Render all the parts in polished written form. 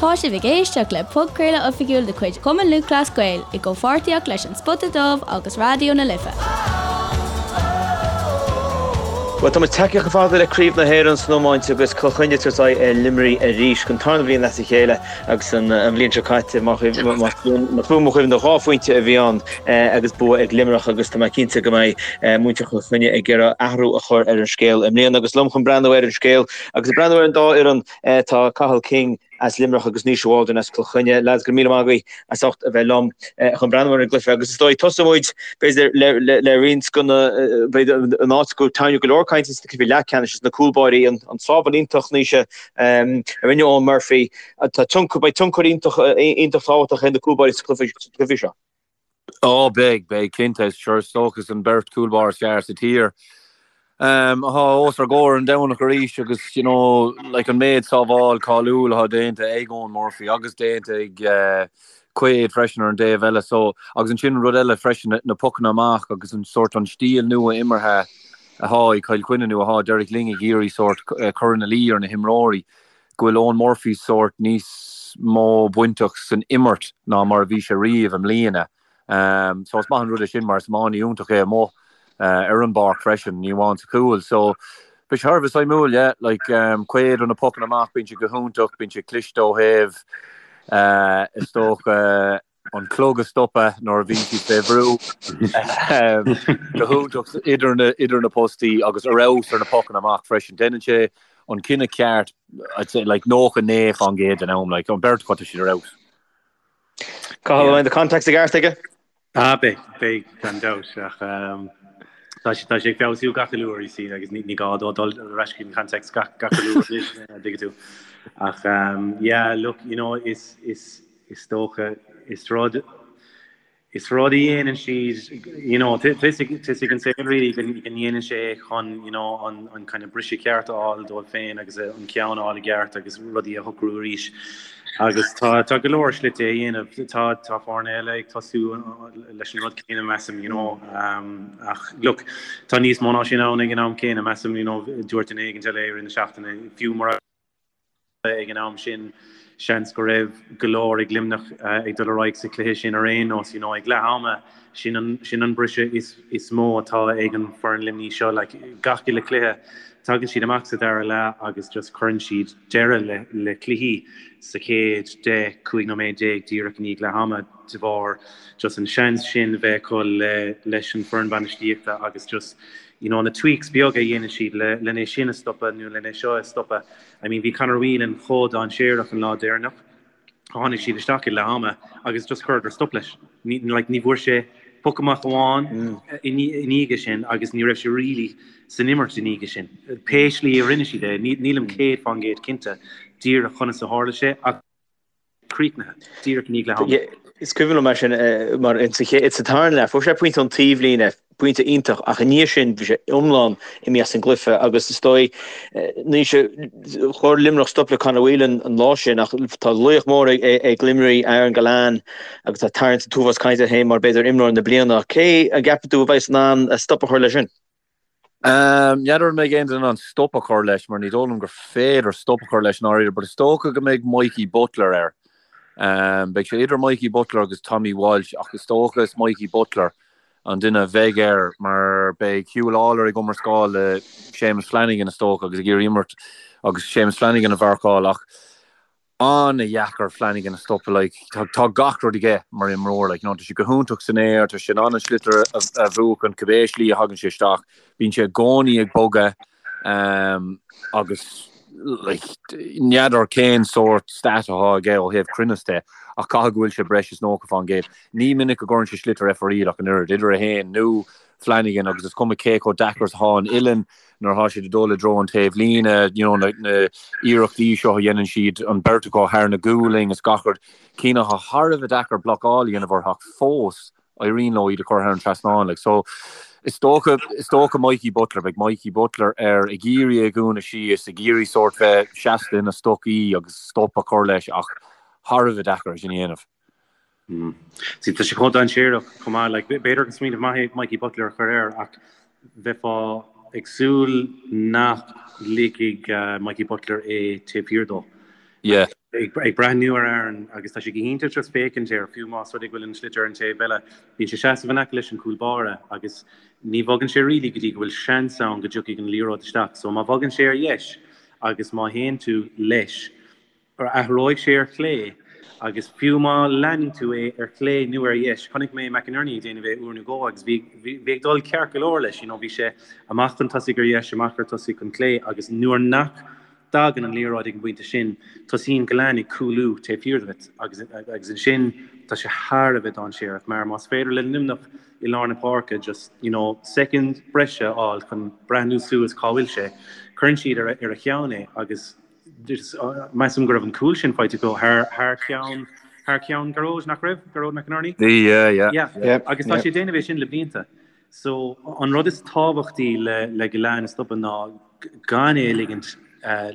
Tá sibh ag éisteacht le podchraoladh oifigiúil de chuid Chumann Lúthchleas Gael i gcomhpháirtíocht leis An Spota Dubh agus Raidió na Life. Bhuel, tá muid tagtha chomh fada le Craobh na hÉireann san iomáint agus Cill Chainnigh ag tabhairt aghaidh ar Luimnigh arís don tarna bhliain as a chéile agus an bhliain seo caite, más buan mo chuimhne, 2 phointe a bhí ann agus bua ag Luimneach agus tá mé cinnte go mbeidh muintir Chill Chainnigh ag iarraidh athrú a chur ar an scéal i mbliana agus liom chun breathnú ar an scéal agus ag breathnú ar an dá fhoireann tá Cathal King as Luimneach agus Naoise Waldron as Cill Chainnigh. Lads, go raibh míle maith agaibh as ucht a bheith liom chun breathnú ar an gcluiche agus is dóigh tosóidh muid b'fhéidir le roinnt de na b'fhéidir an áit go tarraingíodh go leor cainte sna cluichí leathcheannais is na cúlbáirí an an sábháil iontach Naoise a rinne Eoin Murphy. Tá tionchar beidh tionchar iontach iontach tábhachtach ag na cúlbáirí sa chluiche seo. Ó, beidh, beidh, cinnte. Sure, is dócha is an beirt cúlbáire is fearr sa tír atá os ár gcomhair an Domhnach arís agus, you know, like an méid sábháil cáiliúil atá déanta ag Eoin Murphy agus déanta ag Quaid freisin ar an dtaobh eile. So, agus ansin rud eile freisin, na pocanna amach agus an sórt an stíl nua imeartha atá ag Cill Chainnigh nó atá Derek Lyng ag iarraidh sórt cur ina luí ar na himreoirí. go bhfuil Eoin Murphy sórt níos mó bainteach san imirt ná mar a bhí sé riamh i mbliana. So is maith an rud é sin mar is iománaí iontach é amuigh ar an bpáirc freisin, ní amháin sa chúl. So beidh sé thar a bheith suimiúil, yeah. Like Quaid ó na pocanna amach, bíonn sé go hiontach, bíonn sé cliste ó thaobh is dócha an clog a stopadh nuair a bhíonn siad fé bhrú. Go hiontach idir na, idir na postaí agus ar fheabhas ar na pocanna amach freisin. Déanann sé an cinneadh ceart, I'd say, like 99% den am, like an beirt acu tá siad ar fheabhas. Cathal, an mbeidh na contacts i gceart aige? Ah, beidh, beidh, gan dabht, ach tá sé, tá sé ag feabhsú gach uile uair, you see, agus ní, ní gá dó dul ar ais chuig na contacts gach, gach uile uair anois, an dtuigeann tú. Ach, yeah, look, you know, is, is, Is dócha, is rud, is rud a dhéanann siad, you know, tá a fhios ag an saol really go ndéanann sé é chun, you know, an, an kind of briseadh ceart a fháil dóibh féin agus an ceann a fháil i gceart agus rudaí a shocrú arís. Agus tá, tá go leor slite é a dhéanamh. Tá, tá foirne eile ag tosú leis an rud céanna, measaim, you know, ach look, tá níos mó ná sin ann ag an am céanna, measaim, you know, dúirt duine éigin eile i rith na seachtaine, fiú mura. ag an am sin, seans go raibh go leor ag Luimneach ag dul ar aghaidh sa chluiche sin ar aon nós. You know, ag leath ama, sin an, sin an briseadh is, is mó atá ag an foireann Luimnigh seo. Like, gach uile chluiche, tagann siad amach sa dara leath agus just cuireann siad deireadh le, le cluichí sa chéad 10, 15 nóiméad díreach i ndiaidh leath ama de bharr just an seans sin bheith acu le, leis an foireann bainistíochta agus just, you know, na tweaks beaga a dhéanann siad le, len é sin a stopadh nó len é seo a stopadh. I mean bhí Conor Whelan chomh dainséarach an lá deireanach, tháinig siad isteach ag leath ama agus just chuireadar stop leis. Ní, like, ní bhfuair sé poc amach amháin i ndiaidh sin agus ní raibh sé really san imirt i ndiaidh sin. Pé slí a rinne siad é, nílim 100% cinnte díreach conas a tharla sé ach críochnaithe díreach i ndiaidh leath ama. Is cuimhin liom é sin mar sa tarna leath, fuair sé pointe ón taobhlíne, pointe iontach, ach i ndiaidh sin bhí sé iomlán imithe as an gcluiche agus is dóigh, Naoise, chuir Luimneach stop le Conor Whelan an lá sin ach tá laoch mór ag Luimnigh, Aaron Gillane, agus tá tarraingt an t-uafás cainte air féin mar b'fhéidir imreoir na bliana. Cé a gceapann tú a bheas in ann stop a chur leis sin? N'fheadar an mbeidh aon duine in ann stop a chur leis mar ní dóigh liom gur féidir stop a chur leis i ndáiríre but is dócha go mbeidh Mikey Butler air. Beidh sé idir Mikey Butler agus Tommy Walsh ach is dócha is Mikey Butler an duine a bheidh air mar beidh Huw Lawlor ag iomrascáil le Séamus Flanagan is dócha agus ag iarraidh imirt agus Séamus Flanagan a mharcáil ach an-dheacair Flanagan a stopadh like tá tá gach rud aige mar imreoir like you know tá sé go hiontach san aer tá sé in ann an sliotar a a bhuachan cibé slí a thagann sé isteach bíonn sé i gcónaí ag bogadh um, agus like n'fheadar cén sórt stat atá aige ó thaobh cruinneas de ach caithfidh go bhfuil sé breis is 90%. Ní minic a gcuireann sé sliotar ar fóraoil ach an oiread idir é féin nó Flanagan agus is cuma cé chomh deacair is atá an uillinn nuair atá siad ag dul i dtreo an taobh líne, you know, na, na iarrachtaí seo a dhéanann siad, an beirt acu thar na gualainn is gach rud, cinn atá thar a bheith deacair blocáil a dhéanamh orthu ach fós éiríonn leo iad a chur thar an trasnán. Like, so, is dócha, is dócha Mikey Butler, beidh Mikey Butler air ag iarraidh é a dhúnadh síos, ag iarraidh sórt bheith seasta ina stocaí agus stop a chur leis ach thar a bheith deacair é sin a dhéanamh. See, tá sé chomh dainséarach chomh maith, like, b'fhéidir gur smaoineamh maith é Mikey Butler a chur air ach bheifeá ag súil nach ligfidh Mikey Butler é taobh thiar dó. Yeah. Ag breathnú ar Aaron agus tá sé go hiontach just féachaint air, fiú más rud é go bhfuil an sliotar ar an taobh eile, bíonn sé seasamh in aice leis an cúl báire agus ní bhogann sé really go dtí go bhfuil seans ann go dtiocfaidh an liathróid isteach. So má bhogann sé ar dheis agus má théann tú leis, athróidh sé ar chlé agus fiú má leanann tú é ar chlé nó ar dheis, chonaic mé McInerney ag déanamh é uair nó dhó agus bhí bhí ag dul ceart go leor leis, you know, bhí sé amach chun tosaigh ar dheis, amach ar tosaigh chun clé agus nuair nach dtagann an liathróid ag an bpointe sin, tosaíonn Gillane ag cúlú taobh thiar díot agus agus ansin tá sé thar a bheith dainséarach mar más féidir le Luimneach i lár na páirce just, you know, soicind breise a fháil chun breathnú suas cá bhfuil sé, cuireann siad ar a cheann é agus Measaim go raibh an cúl sin faighte acu thar thar ceann thar ceann Gearóid, nach raibh? Gearóid McInerney? Bhí, yeah, yeah. Yeah. Yeah. Agus tá sé ag déanamh é sin le blianta. So an rud is tábhachtaí le le Gillane a stopadh ná gan é a ligint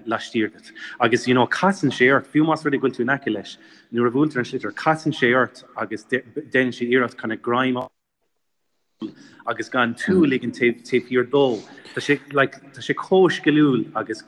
laistiar díot. Agus you know casann sé ort, fiú más rud é go bhfuil tú in aice leis, nuair a bhuailtear an sliotar, casann sé ort agus déanann sé iarracht kind of greim a agus gan tú a ligean taobh thiar dó. Tá sé like tá sé chomh sciliúil agus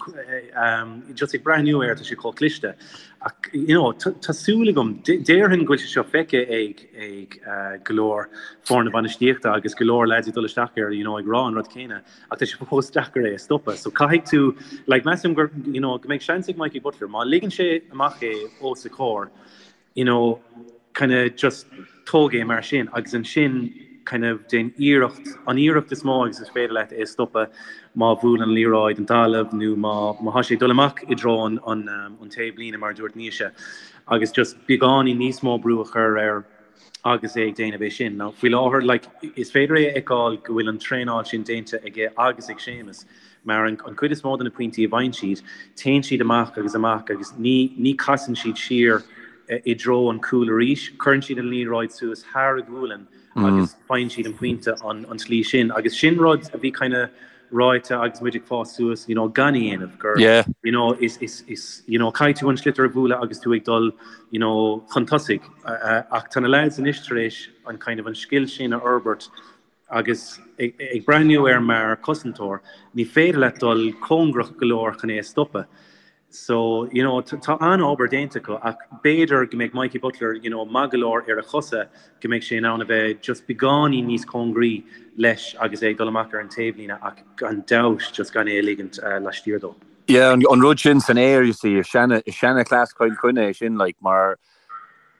just ag breathnú air tá sé chomh cliste. Ach you know tá súil agam, déarfainn go bhfuil sé seo feicthe ag ag go leor foirne bainistíochta agus go leor lads ag dul isteach air you know ag rá an rud céanna ach tá sé fós deacair é a stopadh. So caithfidh tú like measaim gur you know go mbeidh seans ag Mikey Butler má ligeann sé amach é os a chomhair you know, kind of just tóg é mar sin agus ansin kind of déan iarracht, an iarracht is mó agus is féidir leat é a stopadh má bhuaileann an liathróid an talamh nó má má thá sé ag dul amach i dtreo an an an taobhlíne mar a dúirt Naoise agus just beagáinín níos mó brú a chur air agus é ag déanamh é sin. Now faoi láthair like is féidir é a fheiceáil go bhfuil an traenáil sin déanta aige agus ag Séamus mar an chuid is mó de na pointí a bhfaigheann siad, téann siad amach agus amach agus ní ní casann siad siar i dtreo an cúil arís, cuireann siad an liathróid suas thar a gualainn agus faigheann siad an pointe an an tslí sin agus sin rud a bhí kind of ráite agus muid ag fás suas you know gan a dhéanamh gur Yeah. you know is is is you know caithfidh tú an sliotar a bhualadh agus tú ag dul you know chun tosaigh ach tá na lads anois tar éis an kind of an scil sin a fhorbairt Agus ag breathnú air mar chosantóir, ní féidir leat dul cóngarach go leor chun é a stopadh. So, you know, tá an-obair déanta acu ach b'fhéidir go mbeidh Mikey Butler, you know, maith go leor ar a chosa go mbeidh sé in ann a bheith just beagáinín níos cóngaraí leis agus é ag dul amach ar an taobhlíne ach gan dabht just gan é a ligint laistiar dó. Yeah, an rud sin san aer, you see, is seana-chleas Chill Chainnigh é sin, like, mar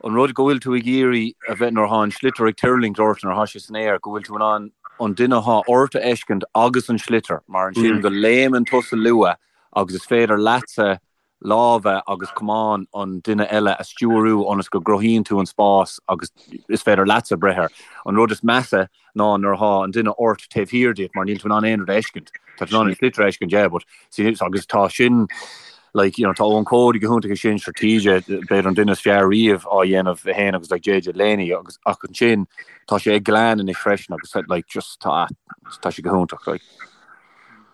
An rud go bhfuil tú ag iarraidh a bheith nuair atá an sliotar ag tuirlingt ort, nuair atá sé san aer, go bhfuil tú in ann an duine atá ort a fheiscint agus an sliotar, mar ansin go léimeann tusa luath agus is féidir leatsa lámha agus camán an duine eile a stiúrú ionas go gcruthaíonn tú an spás agus is féidir leatsa breith air. An rud is measa ná nuair atá an duine ort taobh thiar díot mar níl tú in ann aon rud a fheiscint. Tá tú in ann an sliotar a fheiscint, yeah, but see, agus tá sin, like, you know, tá Eoin Cody go hiontach ag sin, sure TJ, b'fhéidir an duine is fearr riamh á dhéanamh é féin agus like JJ Delaney agus ach ansin tá sé ag Gillane anois freisin agus like just tá tá sé go hiontach like.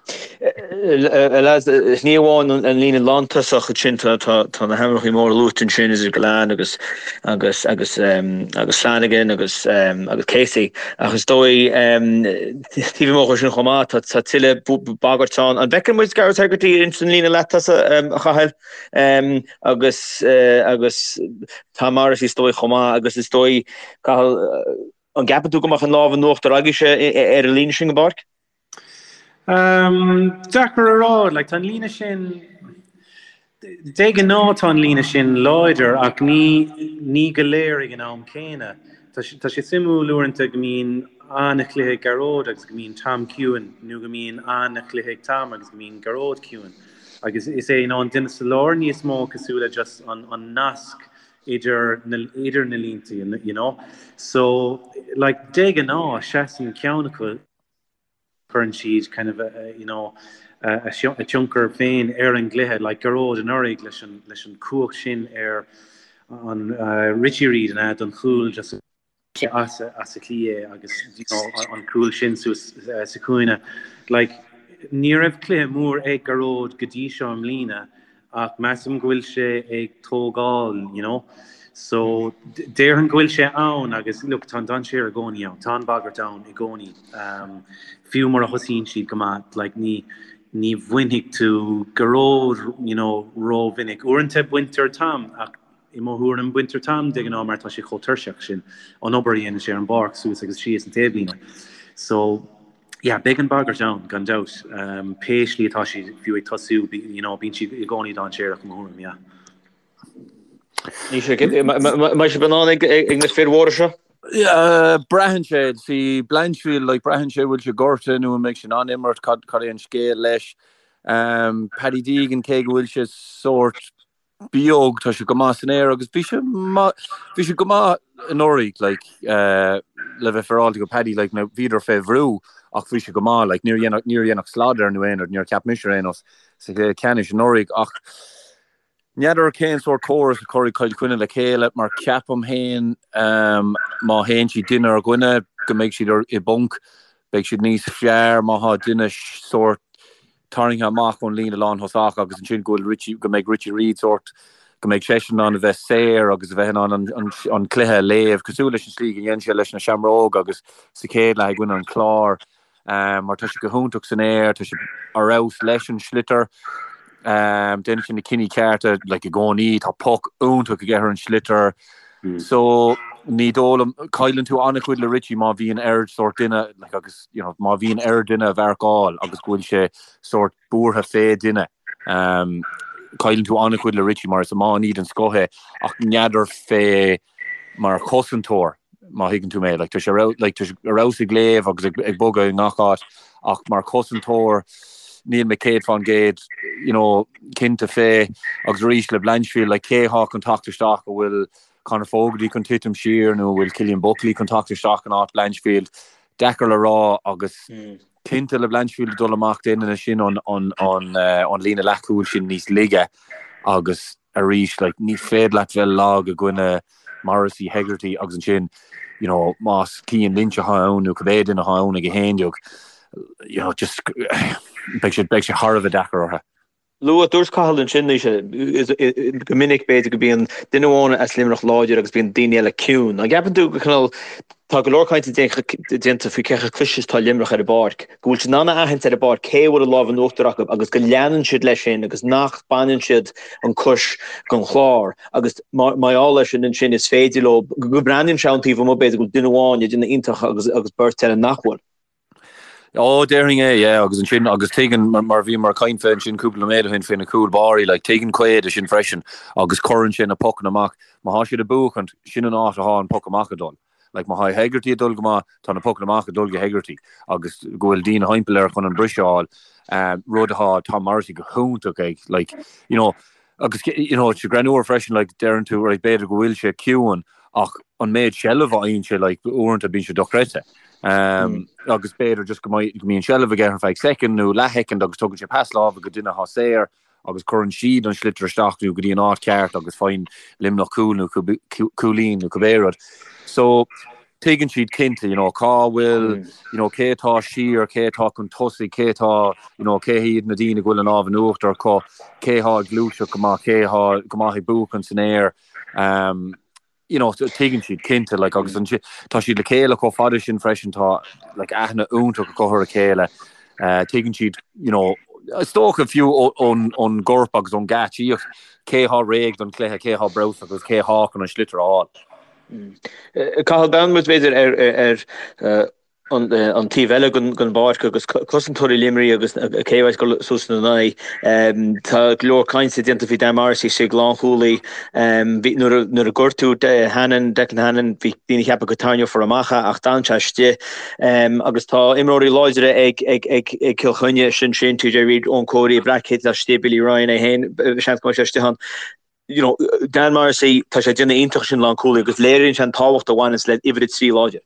Lads, ní amháin an líne lántosach ansin, tá na hainmneacha móra luaite ansin, idir Gillane agus agus agus agus Flanagan agus agus Casey, ach is dóigh taobh amuigh de sin chomh maith, tá tuilleadh bagairt ann. An bhfeiceann muid Gearóid Hegarty ins an líne leath-tosaigh, a Chathail, agus agus Tom Morrissey is dóigh chomh maith agus is dóigh, Cathal, an gceapann tú go mbeadh an lámh in uachtar agaibhse ar an líne sin den bpáirc? Deacair a rá, like tá an líne sin, de ghnáth tá an líne sin láidir ach ní ní go léir ag an am céanna. Tá tá sé suimiúil uaireanta go mbíonn an-chluiche ag Gearóid agus go mbíonn Tom ciúin nó go mbíonn an-chluiche ag Tom agus go mbíonn Gearóid ciúin. Agus is é you know an duine sa lár níos mó cosúil le just an an nasc idir na idir na línte you know. So like de ghnáth seasann ceann acu cuireann siad kind of you know a tionchar féin ar an gcluiche, like Gearóid anuraidh leis an leis an cumhacht sin ar an Richie Reid an ea don chúl just as as a chliath é agus you know an cúl sin suas sa chúinne. Like ní raibh cluiche mór ag Gearóid go dtí seo i mbliana ach measaim go bhfuil sé ag tógáil, you know. So déarfainn go bhfuil sé ann agus look tá an dainséar i gcónaí ann, tá an bhagairt ann i gcónaí. Fiú mura thosaíonn siad go maith, like ní. Ní bhainfidh tú Gearóid, you know, rómhinic. Uaireanta baintear Tom ach i mo thuairim baintear Tom de ghnáth mar tá sé chomh tuirseach sin, an obair a dhéanann sé ar an bpáirc suas agus síos an taobhlíne. So, yeah, beidh an bhagairt ann gan dabht. Pé slí atá siad fiú ag tosú, you know, bíonn siad i gcónaí dainséarach i mo thuairim, yeah. Mbeidh sibh in ann ag na fir mhóra seo? Braitheann sé, see Blanchfield, like, braitheann sé bhfuil sé gortaithe nó an mbeidh sé in ann imirt, cad cad é an scéal leis. Paddy Deegan, cé go bhfuil sé sórt beag, tá sé go maith san aer agus bhí sé bhí sé go maith anuraidh, like, le bheith féaráilte go Paddy, like, now bhíodar fé bhrú ach bhí sé go maith, like, níor dhein níor dhein ach slad air nó aon rud, níor cheap mise ar aon nós sa chluiche ceannais anuraidh ach N'fheadar cén sórt córas a chuirfidh Cill Chainnigh le chéile mar ceapaim féin má théann siad duine ar dhuine go mbeidh siad i bponc. Beidh siad níos fearr má thá duine sórt tarraingthe amach ón líne lánthosach agus ansin go bhfuil Richie, go mbeidh Richie Reid sórt, go mbeidh seisean in ann a bheith saor agus a bheith in ann an cluiche a léamh cosúil leis an slí go dhein sé leis na Seamróga agus sa chéad leath i gcoinne an Chláir. mar tá sé go hiontach san aer, tá sé ar fheabhas leis an sliotar, déanann sé na cinní cearta like i gcónaí, tá poc iontach aige ar an sliotar. So ní dóigh liom, cailleann tú an-chuid le Richie má bhíonn air sórt duine like agus you know má bhíonn air duine a mharcáil agus go bhfuil sé sórt buartha fé duine. Cailleann tú an-chuid le Richie mar is iománaí den scoth é ach n'fheadar fé mar chosantóir, má thuigeann tú mé. Like, tá sé ar like, tá sé ar fheabhas ag léamh agus ag, ag bogadh i ngach áit, ach mar chosantóir, níl mé 100% you know, cinnte fé. Agus arís le Blanchfield, like, cé thá chun teacht isteach an bhfuil Conor Fogarty chun titim siar nó an bhfuil Cillian Buckley chun teacht isteach in áit Blanchfield? Deacair le rá agus cinnte le Blanchfield ag dul amach déanann sin an, an, an, uh, an líne leathchúil sin níos laige agus arís, like, ní féidir leat bheith lag i gcoinne Morrissey, Hegarty agus ansin, you know, más Cian Lynch atá ann nó cibé duine atá ann ag 11, you know, just beidh sé, beidh sé thar a bheith deacair orthu. Luaigh, dúirt Cathal ansin, go minic b'fhéidir go mbíonn duine amháin as Luimneach láidir agus bíonn daoine eile ciúin. An gceapann tú go cineál, tá go leor cainte déanta faoi cé chomh cliste is atá Luimneach ar an bpáirc, go bhfuil siad in ann a aithint ar an bpáirc cé a bhfuil an lámh in uachtar acu agus go leanann siad leis sin agus nach baineann siad an cois den chlár agus mar gheall air sin ansin is féidir leo, go mbreathnaíonn sé ón taobh amuigh b'fhéidir go bhfuil duine amháin ag déanamh iontach agus agus beirt eile nach bhfuil. Ó, déarfainn é, yeah, agus ansin, agus tuigeann, mar bhíomar ag caint fé ansin cúpla nóiméad ó shin fé na cúl báirí, like, tuigeann Quaid é sin freisin agus cuireann sé na pocanna amach. Má thá siad ag buachaint, sin an áit athá an poc amach ag dul. Like, má thá Hegarty ag dul go maith, tá na pocanna amach ag dul go Hegarty agus go bhfuil daoine thimpeall air chun an briseadh a fháil, rud athá Tom Morrissey go hiontach ag, like, you know, Agus you know, it's greannmhar freisin, like, deireann tú, right, b'fhéidir go bhfuil sé ciúin ach an méid seilbh a fhaigheann sé, like, uaireanta bíonn sé dochreidte. Um, agus b'fhéidir just go mbeidh, go mbíonn seilbh aige ar feadh soicind nó leathshoicind agus tugann sé pas láimhe go duine atá saor agus cuireann siad an sliotar isteach nó go dtí an áit ceart agus faigheann Luimneach cúl nó cúilín nó cibé rud. So, tuigeann siad cinnte, you know, cá bhfuil, you know, cé atá siar, cé atá chun tosaigh, cé atá, you know, cé hiad na daoine go bhfuil an lámh in uachtar acu, cé atá ag gluaiseacht go maith, cé atá go maith ag buachan san aer. Um, you know, tuigeann siad cinnte, like, agus an, tá siad le chéile chomh fada sin freisin, tá, like, aithne iontach acu ar a chéile. Uh, tuigeann siad, you know, is dócha fiú ón, ón gcorp agus ón ngeáitsíocht, cé atá réidh don chluiche, cé atá breabhsach agus cé atá chun an sliotar a fháil. Cathal, breathnaíonn muid b'fhéidir ar an taobh eile den bpáirc agus cosantóirí Luimnigh agus cé a bheas ag dul suas ina n-aghaidh. Tá go leor cainte déanta faoi Dan Morrissey istigh lánchúlaí. Nuair a gortaíodh Hannon, Declan Hannon, bhí daoine ag ceapadh go tarraingeofar amach é ach d'fhan sé istigh. Agus tá imreoirí láidre ag Cill Chainnigh, sin sin, TJ Reid, Eoin Cody, Black Kit istigh, Billy Ryan é féin, seans go mbeidh sé istigh ann. you know, Dan Morrissey, tá sé ag déanamh iontach sin lánchúlaí agus léiríonn sé an tábhacht a bhaineanns le uimhir 3 láidir.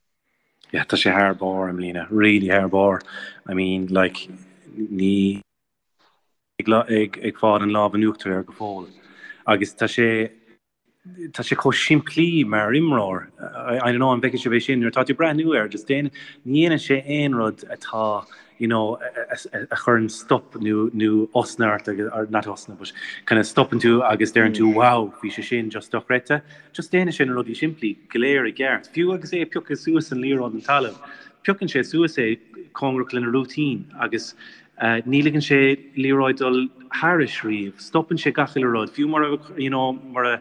Yeah, tá sé thar barr i mbliana, really thar barr. I mean, like, ní ag, ag, ag fáil an lámh in uachtar air go fóill. Agus tá sé, tá sé chomh simplí mar imreoir. I, I don't know an bhfeiceann sibh é sin, nuair atá tú ag breathnú air, just déan, ní dhéanann sé aon rud atá you know, a chuireann stop nó nó osna ort agus, or not osna, but kind of stopann tú agus deireann tú wow, bhí sé sin just dochreidte. Just déanann sé na rudaí simplí go léir i gceart. Fiú agus é ag piocadh suas an liathróid den talamh, piocann sé suas é cóngarach lena rúitín agus. Ní ligeann sé liathróid dul thairis riamh. Stopann sé gach uile rud. Fiú mura, you know, mura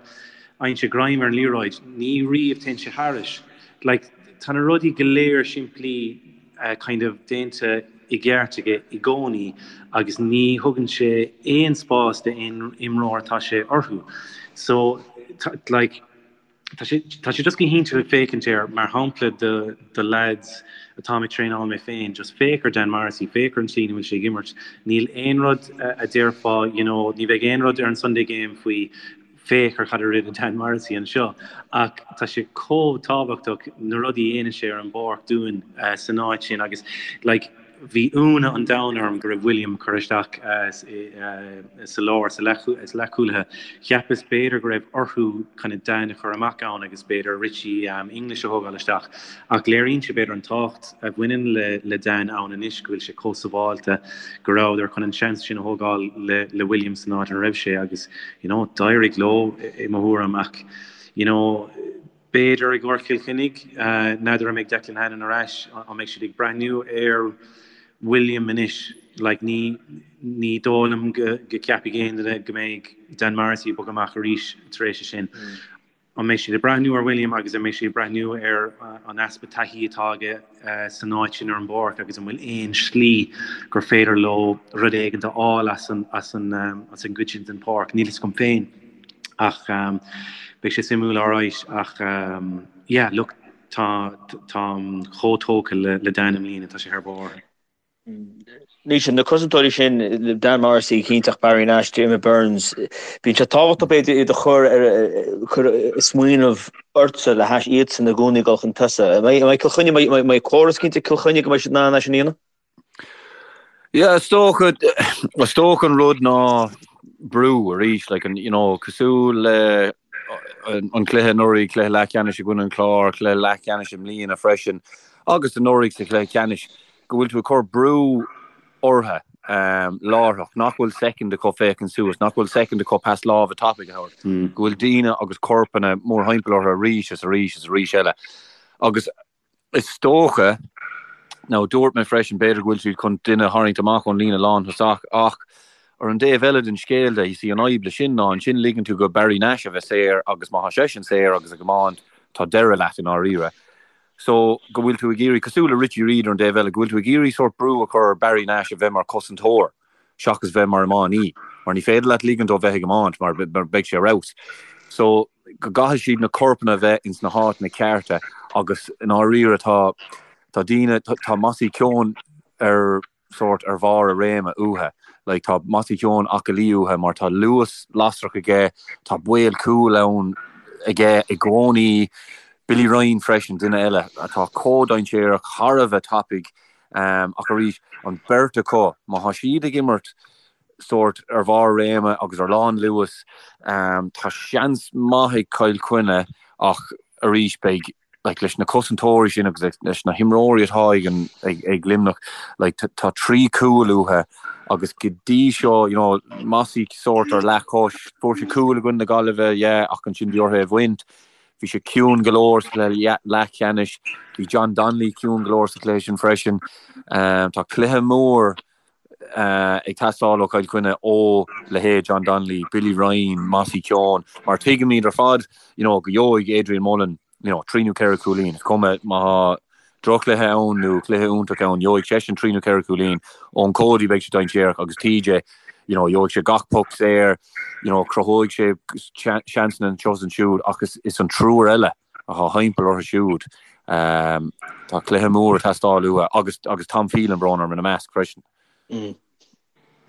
fhaigheann sé greim ar an liathróid, ní riamh téann sé thairis. Like, tá na rudaí go léir simplí kind of déanta i gceart aige i gcónaí agus ní thugann sé aon spás d'aon imreoir atá sé orthu. So, like, Tá sé tá sé just go hiontach ag féachaint air mar shampla do do lads atáim ag traenáil mé féin, just féach ar Dan Morrissey, féach ar an tslí ina bhfuil sé ag imirt. Níl aon rud a déarfá, you know, ní bheidh aon rud ar an Sunday Game faoi féach ar cad a rinne Dan Morrissey anseo ach tá sé chomh tábhachtach na rudaí a dhéanann sé ar an bpáirc dúinn san áit sin agus like Bhí ionadh an domhain orm go raibh William curtha isteach sa lár, sa leathchúlaithe. Cheapas b'fhéidir go raibh orthu kind of Dan a chur amach ann agus b'fhéidir Richie English a thógáil isteach. Ach léiríonn sé b'fhéidir an tábhacht a bhaineann le Dan ann anois, go bhfuil sé chomh sábháilte, go rabhadar chun an seans sin a thógáil le William san áit ina raibh sé agus you know d'éirigh leo i mo thuairim ach you know, B'fhéidir i gcomhair Chill Chainnigh, n'fheadar an mbeidh Declan Hannon ar ais, an mbeidh siad ag breathnú ar William anois? Like ní ní dóigh liom go go ceapfaidh aon duine go mbeidh Dan Morrissey ag bogadh amach arís tar éis sin. An mbeidh siad ag breathnú ar William agus an mbeidh siad ag breathnú ar an easpa taithí atá aige san áit sin ar an bpáirc agus an bhfuil aon slí gur féidir leo rud éigin a fháil as an as an as an gcuid sin den pháirc? Níl fhios agam féin. Ach beidh sé suimiúil alright ach yeah look tá táim chomh tógtha le Dan i mbliana, tá sé thar barr. Naoise, na cosantóirí sin, Dan Morrissey, cinnte ach Barry Nash, Diarmuid Byrnes, bíonn sé tábhachtach b'fhéidir iad a chur ar cur ag smaoineamh ortsa le hais iadsan i gcónaí ag dul chun tosaigh. An mbeidh Cill Chainnigh, an mbeidh córas cinnte ag Cill Chainnigh go mbeidh siad in ann é sin a dhéanamh? Yeah, is dócha, is dócha an rud ná brú arís, like an, you know, cosúil le an cluiche anuraidh, cluiche leathcheannais i gcoinne an Chláir, cluiche leathcheannais i mbliana freisin, agus anuraidh sa chluiche ceannais, go bhfuil tú ag cur brú orthu um, láithreach, nach bhfuil soicind acu féachaint suas, nach bhfuil soicind acu pas láimhe tapaidh a thabhairt, mm. go bhfuil daoine agus corpanna mórthimpeall orthu arís is arís is arís eile. Agus Is dócha, nó dúirt mé freisin, b'fhéidir go bhfuil siad chun duine a tharraingt amach ón líne lánthosach ach ar an dtaobh eile den scéal de, you see, an fhadhb le sin ná ansin ligeann tú go Barry Nash a bheith saor agus má tá seisean saor agus ag iomáint, tá deireadh leat i ndáiríre. So, go bhfuil tú ag iarraidh, cosúil le Richie Reid ar an dtaobh eile, go bhfuil tú ag iarraidh sórt brú a chur ar Barry Nash a bheith mar chosantóir. seachas bheith mar iománaí, mar ní féidir leat ligean dó bheith ag iomáint mar beidh sé ar fheabhas. So, go gcaithfidh siad na corpanna a bheith ins na háiteanna cearta agus i ndáiríre tá tá daoine, tá Mossy Keoghan ar sórt ar bharr a réime uathu. Like tá Mossy Keoghan aclaí uathu mar tá luas lasrach aige, tá baol cúil ann aige i gcónaí. Billy Ryan freisin, duine eile atá chomh dainséarach, thar a bheith tapaidh. Ach arís, an bheirt acu, má tá siad ag imirt sórt ar bharr réime agus ar lán luas, tá seans maith ag Cill Chainnigh ach arís beidh, like, leis na cosantóirí sin agus leis na himreoirí atá ag an, ag, ag Luimneach, like, tá 3 chúl uathu agus go dtí seo, you know, Mossy sórt ar leathchois, fuair sé cúl i gcoinne na Gaillimhe, yeah, ach ansin bhí orthu é a bhaint. Bhí sé ciúin go leor sa chluiche leathcheannais. Bhí John Donnelly ciúin go leor sa chluiche sin freisin. Tá cluiche mór ag teastáil ó Chill Chainnigh ó leithéid John Donnelly, Billy Ryan, Mossy Keoghan, mar tuigimid ar fad you know, go gheobhaidh Adrian Mullen you know, 3 nó 4 cúilín. Is cuma má tá drochchluiche ann nó cluiche iontach ann, gheobhaidh seisean 3 nó 4 cúilín. Eoin Cody beidh sé dainséarach agus TJ, you know, gheobhaidh sé gach poc saor, you know, cruthóidh sé seansanna anseo is ansiúd ach is, is an triúr eile atá thimpeall orthu siúd. Um, tá cluiche mór ag teastáil uathu agus, agus Tom Phelan brón orm ina measc freisin. Mm.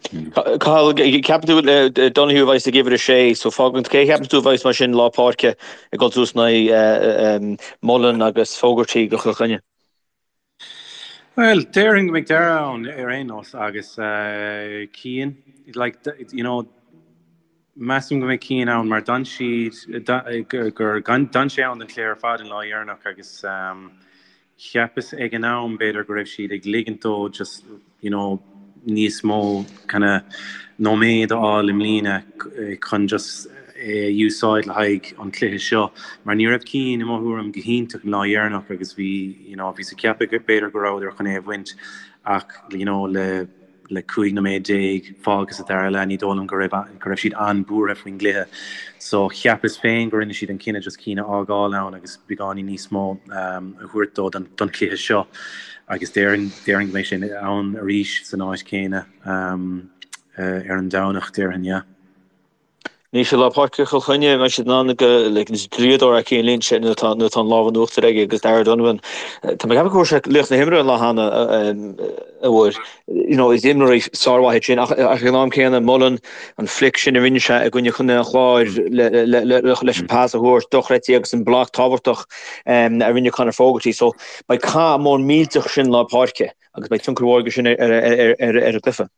Cathal, ceapann tú Donoghue a bheas ag uimhir 6, so fágann cé a cheapann tú a bheas mar sin lár páirce ag dul suas in aghaidh Mullen agus Fogarty do Chill Chainnigh? Bhuel, déarfainn go mbeidh Darragh ann ar aon nós agus Cian, like, you know, measaim go mbeidh Cian ann mar d'fhan siad, gur, d'fhan sé ann don chluiche ar fad an lá dheireanach agus Cheapas ag an am b'fhéidir go raibh siad ag ligint dó just you know níos mó kind of nóiméad a fháil i mbliana chun just é a úsáid le haghaidh an chluiche seo mar ní raibh Cian i mo thuairim go hiontach an lá dheireanach agus bhí you know bhíos ag ceapadh b'fhéidir go rabhadar chun é a bhaint ach you know le. le 15 nóiméad fágtha sa dara leath, ní dóigh liom go raibh go raibh siad an-buartha faoin gcluiche. So cheapas féin go rinne siad an cinneadh just Cian a fhágáil ann agus beagáinín níos mó a thabhairt dó don don chluiche seo agus déarfainn déarfainn go mbeidh sé ann arís san áit chéanna ar an Domhnach, déarfainn, yeah. Anois i lár páirce Chill Chainnigh, an mbeidh siad in ann go like is draíodóir é Cian Lynch nuair atá nuair atá an lámh in uachtar aige agus Darragh O'Donovan. Tá mé ag ceapadh go bhfuair sé laoch na himeartha an lá cheana a bhfuair. You know, is imreoirí sármhaith iad sin ach ach ag an am céanna Mullen an flick sin a rinne sé i gcoinne Chontae an Chláir le le le leis an pas a thabhairt dochreidte agus an bloc tábhachtach a rinne Conor Fogarty. So beidh cath mór millteach sin lár páirce agus beidh tionchar mhór aige sin ar ar ar ar an gcluiche.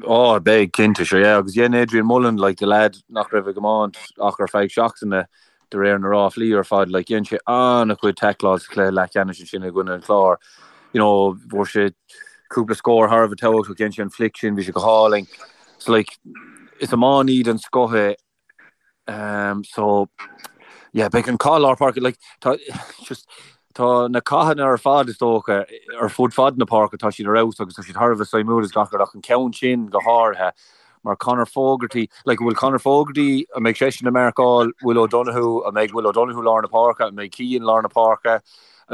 Ó, beidh, cinnte, sure, yeah. Agus dhein Adrian Mullen, like, the lad nach raibh ag iomáint ach ar feadh seachtaine, de réir na ráflaí ar fad, like, dhein sé an-chuid tackláil sa chluiche leathcheannais ansin i gcoinne an Chláir. You know, fuair sé cúpla scór thar a bheith tábhachtach, dhein sé an flick sin, bhí sé go hálainn. So, like, is iománaí den scoth é. Um, so, yeah, beidh an cath lár páirce, like, tá, just, tá na cathanna ar fad is dócha ar fud fad na páirce, tá siad ar fheabhas agus tá siad thar a bheith suimiúil is gach rud ach an ceann sin go háirithe mar Conor Fogarty, like, bhfuil Conor Fogarty, an mbeidh seisean ag marcáil Will O'Donoghue, an mbeidh Will O'Donoghue lár na páirce, an mbeidh Cian lár na páirce,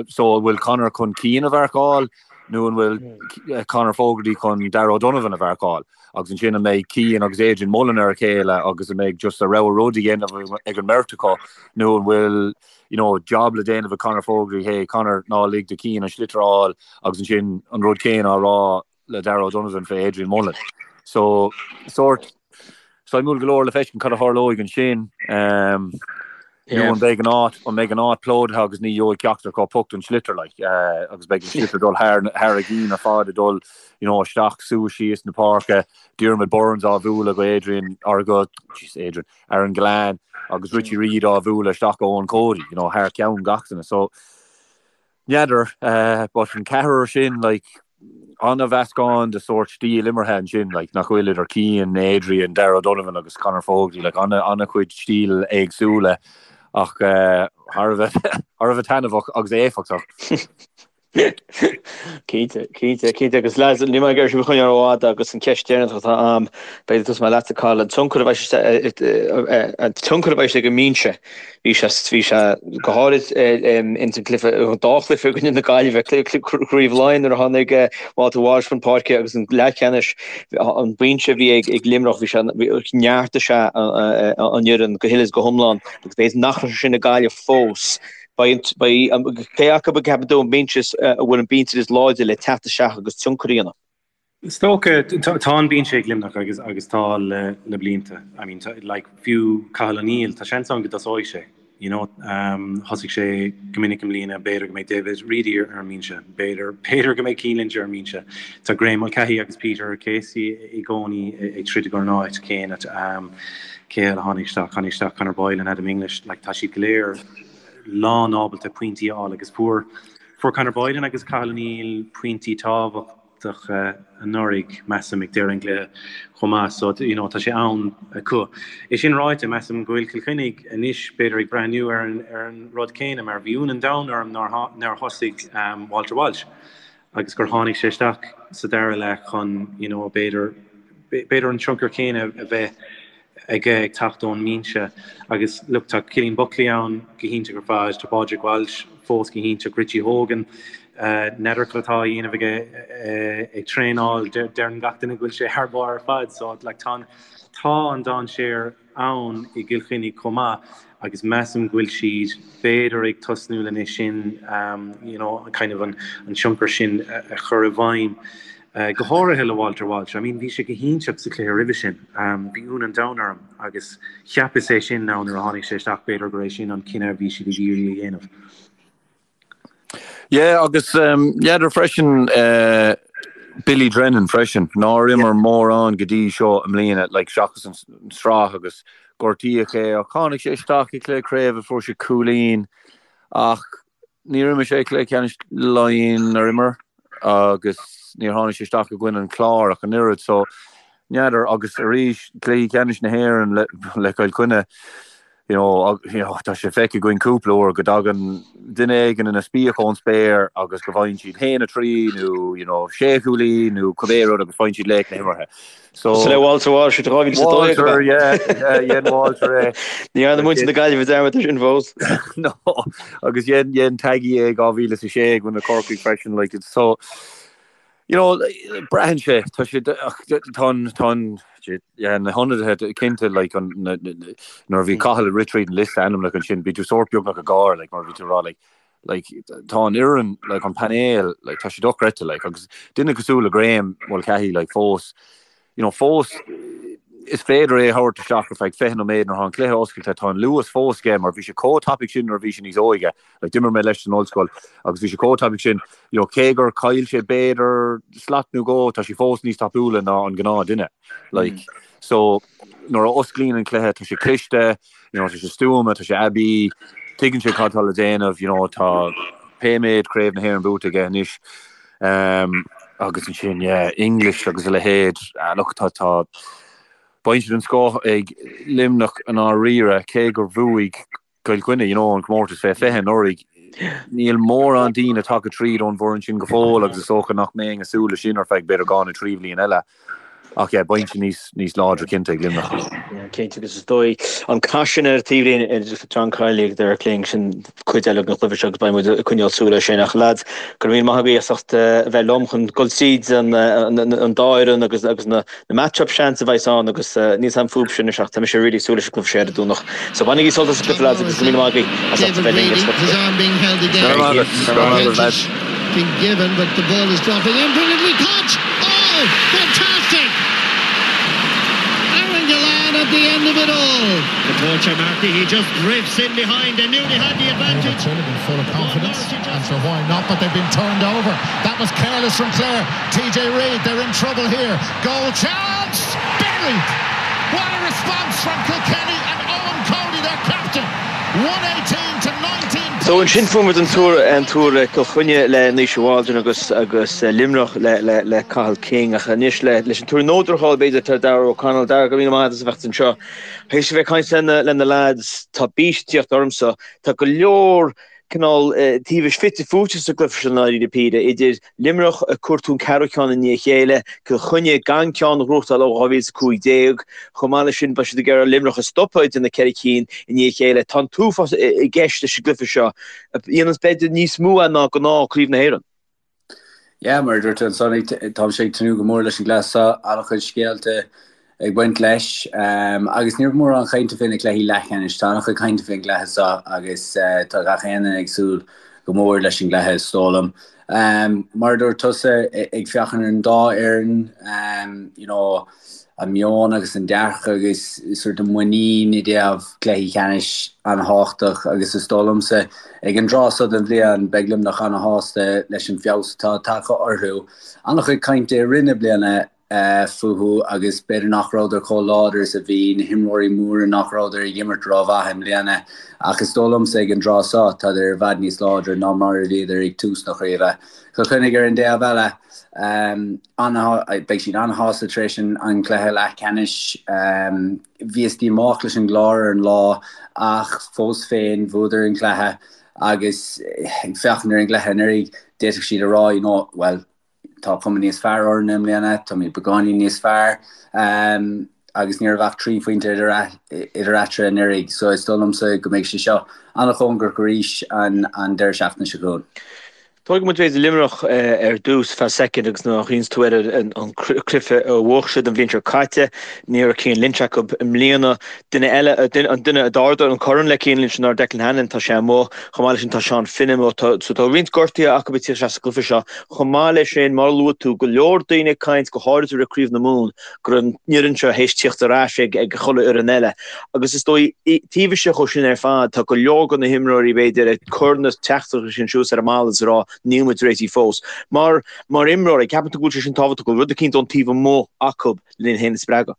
so an bhfuil Conor chun Cian a mharcáil nó an bhfuil Conor Fogarty chun Darragh O'Donovan a mharcáil? Agus ansin an mbeidh Cian agus Adrian Mullen ar a chéile agus an mbeidh just a rogha rud a dhéanamh ag an mbeirt acu nó an bhfuil you know, job le déanamh ag Conor Fogarty, hey Conor ná lig do Cian an sliotar a fháil agus ansin an rud céanna á rá le Darragh O'Donovan fé Adrian Mullen. So sórt suimiúil go leor le feiscint cad a tharlóidh ansin. Um, Nó an mbeidh an áit, an mbeidh an áit plódaithe agus ní gheobhaidh ceachtar acu poc don sliotar like, agus beidh an sliotar ag dul thar, thar a gcinn ar fad ag dul, you know, isteach, suas, síos na páirce, Diarmuid Byrnes á bhualadh go Adrian, or go, jeez, Adrian, Aaron Gillane agus Richie Reid á bhualadh isteach go Eoin Cody, you know, thar ceann gach duine. So, N'fheadar, but an ceathrar sin, like, an-mheascán de sórt stíl imeartha ansin, like, nach bhfuil idir Cian, Adrian, Darragh O'Donovan agus Conor Fogarty, like, an-chuid stíl éagsúla ach thar a bheith, thar a bheith taitneamhach agus éifeachtach. Cinnte, cinnte, cinnte agus lads, níl mé ag iarraidh sibh a choinneáil rófhada agus an cheist deireanach atá a'm, b'fhéidir tosóidh mé leatsa Cathal, an tionchar a bheidh sé, an tionchar a bheidh sé ag an mbinse Bhí sé, bhí sé go háirid ins an gcluiche, an dá chluiche i gcoinne na Gaillimhe, Craobh Laighean nuair a tháinig Walter Walsh chun páirce agus an leathcheannais, an binse a bhí ag Luimneach, bhí sé, neartaigh sé an fhoireann go huile is go hiomlán agus b'fhéidir nach raibh sé sin ag Gaillimh fós. Beidh, beidh, cé acu a gceapann tú an binse, a bhfuil an binse is láidre le teacht isteach agus tionchar a dhéanamh? Is dócha, tá an binse ag Luimneach agus agus tá le le blianta. I mean, like, fiú Cathal O'Neill, tá seans ann go dtosóidh sé, you know. Thosaigh sé go minic i mbliana, b'fhéidir go mbeidh David Reidy ar an mbinse, b'fhéidir, b'fhéidir go mbeidh Cian Lynch ar an mbinse. Tá Graeme Mulcahy agus Peter Casey i gcónaí ag troid don áit céanna. Cé eile a tháinig isteach? Tháinig isteach Conor Boyle and Adam English, like, tá siad go léir lán ábalta pointí a fháil agus fuair, fuair Conor Boylan agus Cathal O'Neill pointí tábhachtacha anuraidh, measaim, ag deireadh an chluiche chomh maith so you know tá sé ann acu. É sin ráite, measaim go bhfuil Cill Chainnigh anois b'fhéidir ag breathnú ar an ar an rud céanna mar bhí ionadh an domhain orm nár nár thosaigh Walter Walsh agus gur tháinig sé isteach sa dara leath chun you know b'fhéidir b'fhéidir an tionchar céanna a bheith aige ag teacht ón mbinse agus look tá Cillian Buckley ann go hiontach ar fad, tá Pádraig Walsh fós go hiontach, Richie Hogan, n'fheadar cad atá á dhéanamh aige ag traenáil, deireann gach duine go bhfuil sé thar barr ar fad so like tá tá an dainséar ann i gCill Chainnigh chomh maith agus measaim go bhfuil siad b'fhéidir ag tosnú lena sin you know kind of an an tionchar sin a chur i bhfeidhm. Go háirithe le Walter Walsh. I mean bhí sé go hiontach sa chluiche roimhe sin. Bhí ionadh an domhain orm agus cheapas é sin now nuair a tháinig sé isteach b'fhéidir gur é sin an cinneadh a bhí siad ag iarraidh a dhéanamh. Yeah agus n'fheadar freisin Billy Drennan freisin nár imir mórán go dtí seo i mbliana like seachas an sraith agus gortaíodh é ach tháinig sé isteach i gcluiche craoibhe fuair sé cúilín ach Níor imir sé cluiche ceannais Laighean ar imir agus níor tháinig sé isteach i gcoinne an Chláir ach an oiread so n'fheadar agus arís cluichí ceannais na hÉireann le le Cill Chainnigh. You know, you know, tá sé feicthe againn cúpla uair go dtagann duine éigin ina spíoc ón spéir agus go bhfaigheann siad 1-3 nó, you know, sé chúilín nó cibé rud agus faigheann siad laoch na himeartha. So, Cosúil le Walter Walsh i 2012 Walter, yeah, yeah, dhein Walter é. Ní dhearna muintir na Gaillimhe dearmad air sin fós. No, agus dhein, dhein Taggy é i 2006 i gcoinne Corcaigh freisin, like, it's so, You know, braitheann sé, tá sé, tá an, tá an, yeah, na hionadaithe cinnte, like, an, na, nuair a bhí Cathal ag rith tríd an liosta ainmneacha ansin, bhí tú sórt beagnach ag gáire, like, mar bhí tú ag rá, like, like, tá an fhoireann, like, an painéal, like, tá sé dochreidte, like, agus duine cosúil le Graeme Mulcahy, like, fós, you know, fós is féidir é a thabhairt isteach ar feadh 20 nóiméad nuair atá an cluiche oscailte, tá an luas fós aige mar bhí sé chomh tapaidh sin nuair a bhí sé níos óige, like d'imir mé leis san ollscoil agus bhí sé chomh tapaidh sin, you know, cé gur chaill sé b'fhéidir slat nó dhó, tá sé fós níos tapúla ná an gnáth duine, like, so nuair a osclaíonn an cluiche tá sé cliste, you know, tá sé stuama, tá sé aibí, tuigeann sé cad tá le déanamh, you know, tá pé méid Craobh na hÉireann buaite aige anois. Agus ansin, yeah, English agus a leithéid. Look, tá, tá, bainse den scoth ag Luimneach i ndáiríre, cé gur bhuaigh Cill Chainnigh, you know, an comórtas fé 20 anuraidh. Níl mórán daoine tagtha tríd ón bhfoireann sin go fóill agus is dócha nach mbeinn ag súil leis sin ar feadh b'fhéidir dhá nó trí bhliain eile. Ach yeah, bainse níos, níos láidre cinnte ag Luimneach. Yeah, cinnte agus is dóigh an cath sin ar an taobhlíne idir John Kiely agus Derek Lyng sin cuid eile den chluiche seo agus beidh muid ag coinneáil súil air sin. Ach lads, go raibh míle maith agaibh as ucht a bheith liom chun dul tríd an an dá fhoireann agus agus na na match-up seans a bheas ann agus níl a fhios agam fúibhse anois ach tá mise really ag súil leis an gcluiche seo ar an Domhnach. So bainigí sult as an gcluiche lads agus go raibh míle maith agaibh as ucht a bheith linn ar Go raibh maith agat. Go raibh maith agat lads. Been given, but the ball is dropping in. Brilliantly caught! Oh, fantastic! Aaron Gillane at the end of it all. The poacher Markey, he just drifts in behind. They knew they had the advantage. They've been full of confidence, and so why not? But they've been turned over. That was careless from Clare. TJ Reid, they're in trouble here. Goal chance! Buried! What a response from Kilkenny and Eoin Cody, their captain. 118 to 19 So ansin fuair muid an tuar an tuar Cill Chainnigh le Naoise Waldron agus agus Luimneach le le le Cathal King ach anois le leis an tuar nódracháil b'fhéidir tá Darragh O'Connell. Darragh go raibh míle maith agat as a bheith anseo. Théis a bheith ag caint lena lena lads tá bís ag tíocht ormsa. Tá go leor cineál taobhais fite fuaite sa gcluiche seo i ndáiríre píre, idir Luimneach ag cuartú an ceathrú ceann i ndiaidh a chéile, Cill Chainnigh gan ceann a ghnóthachtáil ó 2015. Chomh maith leis sin, beidh siad ag iarraidh Luimneach a stopadh ag déanamh 4 cinn i ndiaidh a chéile. Tá an t-uafás i gceist leis an gcluiche seo, a dhéananns b'fhéidir níos mó é ná gnáth Craobh na hÉireann. Yeah, mar a dúirt tú ansan, táimse ag tnúth go mór leis an gcluiche seo, an-chuid scéalta ag baint leis. Agus ní raibh mórán cainte fé na cluichí leathcheannais. Tá an-chuid cainte fén gcluiche seo agus tá gach aon duine ag súil go mór leis an gcluiche, is dóigh liom. Mar a dúirt tusa, ag féachaint ar an dá fhoireann, you know, an meon agus an dearcadh agus sort of muinín i dtaobh cluichí ceannais an-thábhachtach agus is dóigh liomsa ag an dtráth seo den bhliain beidh Luimneach an-shásta leis an feabhas atá tagtha orthu. An-chuid cainte i rith na bliana fúthu agus b'fhéidir nach rabhadar chomh láidir is a bhí, na himreoirí móra nach rabhadar ag imirt rómhaith i mbliana ach is dóigh liomsa ag an dtráth seo tádar i bhfad níos láidre ná mar a bhíodar ag tús na craoibhe. Cill Chainnigh ar an dtaobh eile, beidh siad an-shásta tar éis an chluiche leathcheannais. Bhíothas díomách leis an gClár ar an lá ach fós féin bhuadar an cluiche agus ag féachaint ar an gcluiche anuraidh d'fhéadfadh siad a rá you know, well, tá cuma níos fearr orainn i mbliana, táimid beagáinín níos fearr agus ní raibh ach 3 phointe idir eatarthu anuraidh so is dóigh liomsa go mbeidh sé seo an-chóngarach arís an deireadh seachtaine seo chugainn. Tógfaidh muid b'fhéidir Luimneach ar dtús feadh soicind agus nuair a chuimhníonns tú ar an cluiche a bhuaigh siad an bhliain seo caite, ní raibh Cian Lynch acu i mbliana. Duine eile, an duine a d'ardaigh an corn le Cian Lynch ná Declan Hannon, tá sé amuigh. Chomh maith leis sin tá Seán Finn amuigh. So tá roinnt gortuithe acu ag tíocht isteach sa gcluiche seo. Chomh maith leis sin, mar a luaigh tú, go leor daoine ag caint, go háirithe roimh Craobh na Mumhan, go raibh an fhoireann seo théis tíocht ar ais ag ag chuile fhoireann eile. Agus is dóigh, taobh istigh dhó sin ar fad, tá go leor de na himreoirí, b'fhéidir, ag cur na teachtaireachtaí sin suas ar an mballa is ag rá, níl muid réitithe fós. Mar, mar imreoir, an gceapann tú go bhfuil sé sin tábhachtach, go bhfuil rud eicínt ón taobh amuigh acu lena iad féin a spreagadh?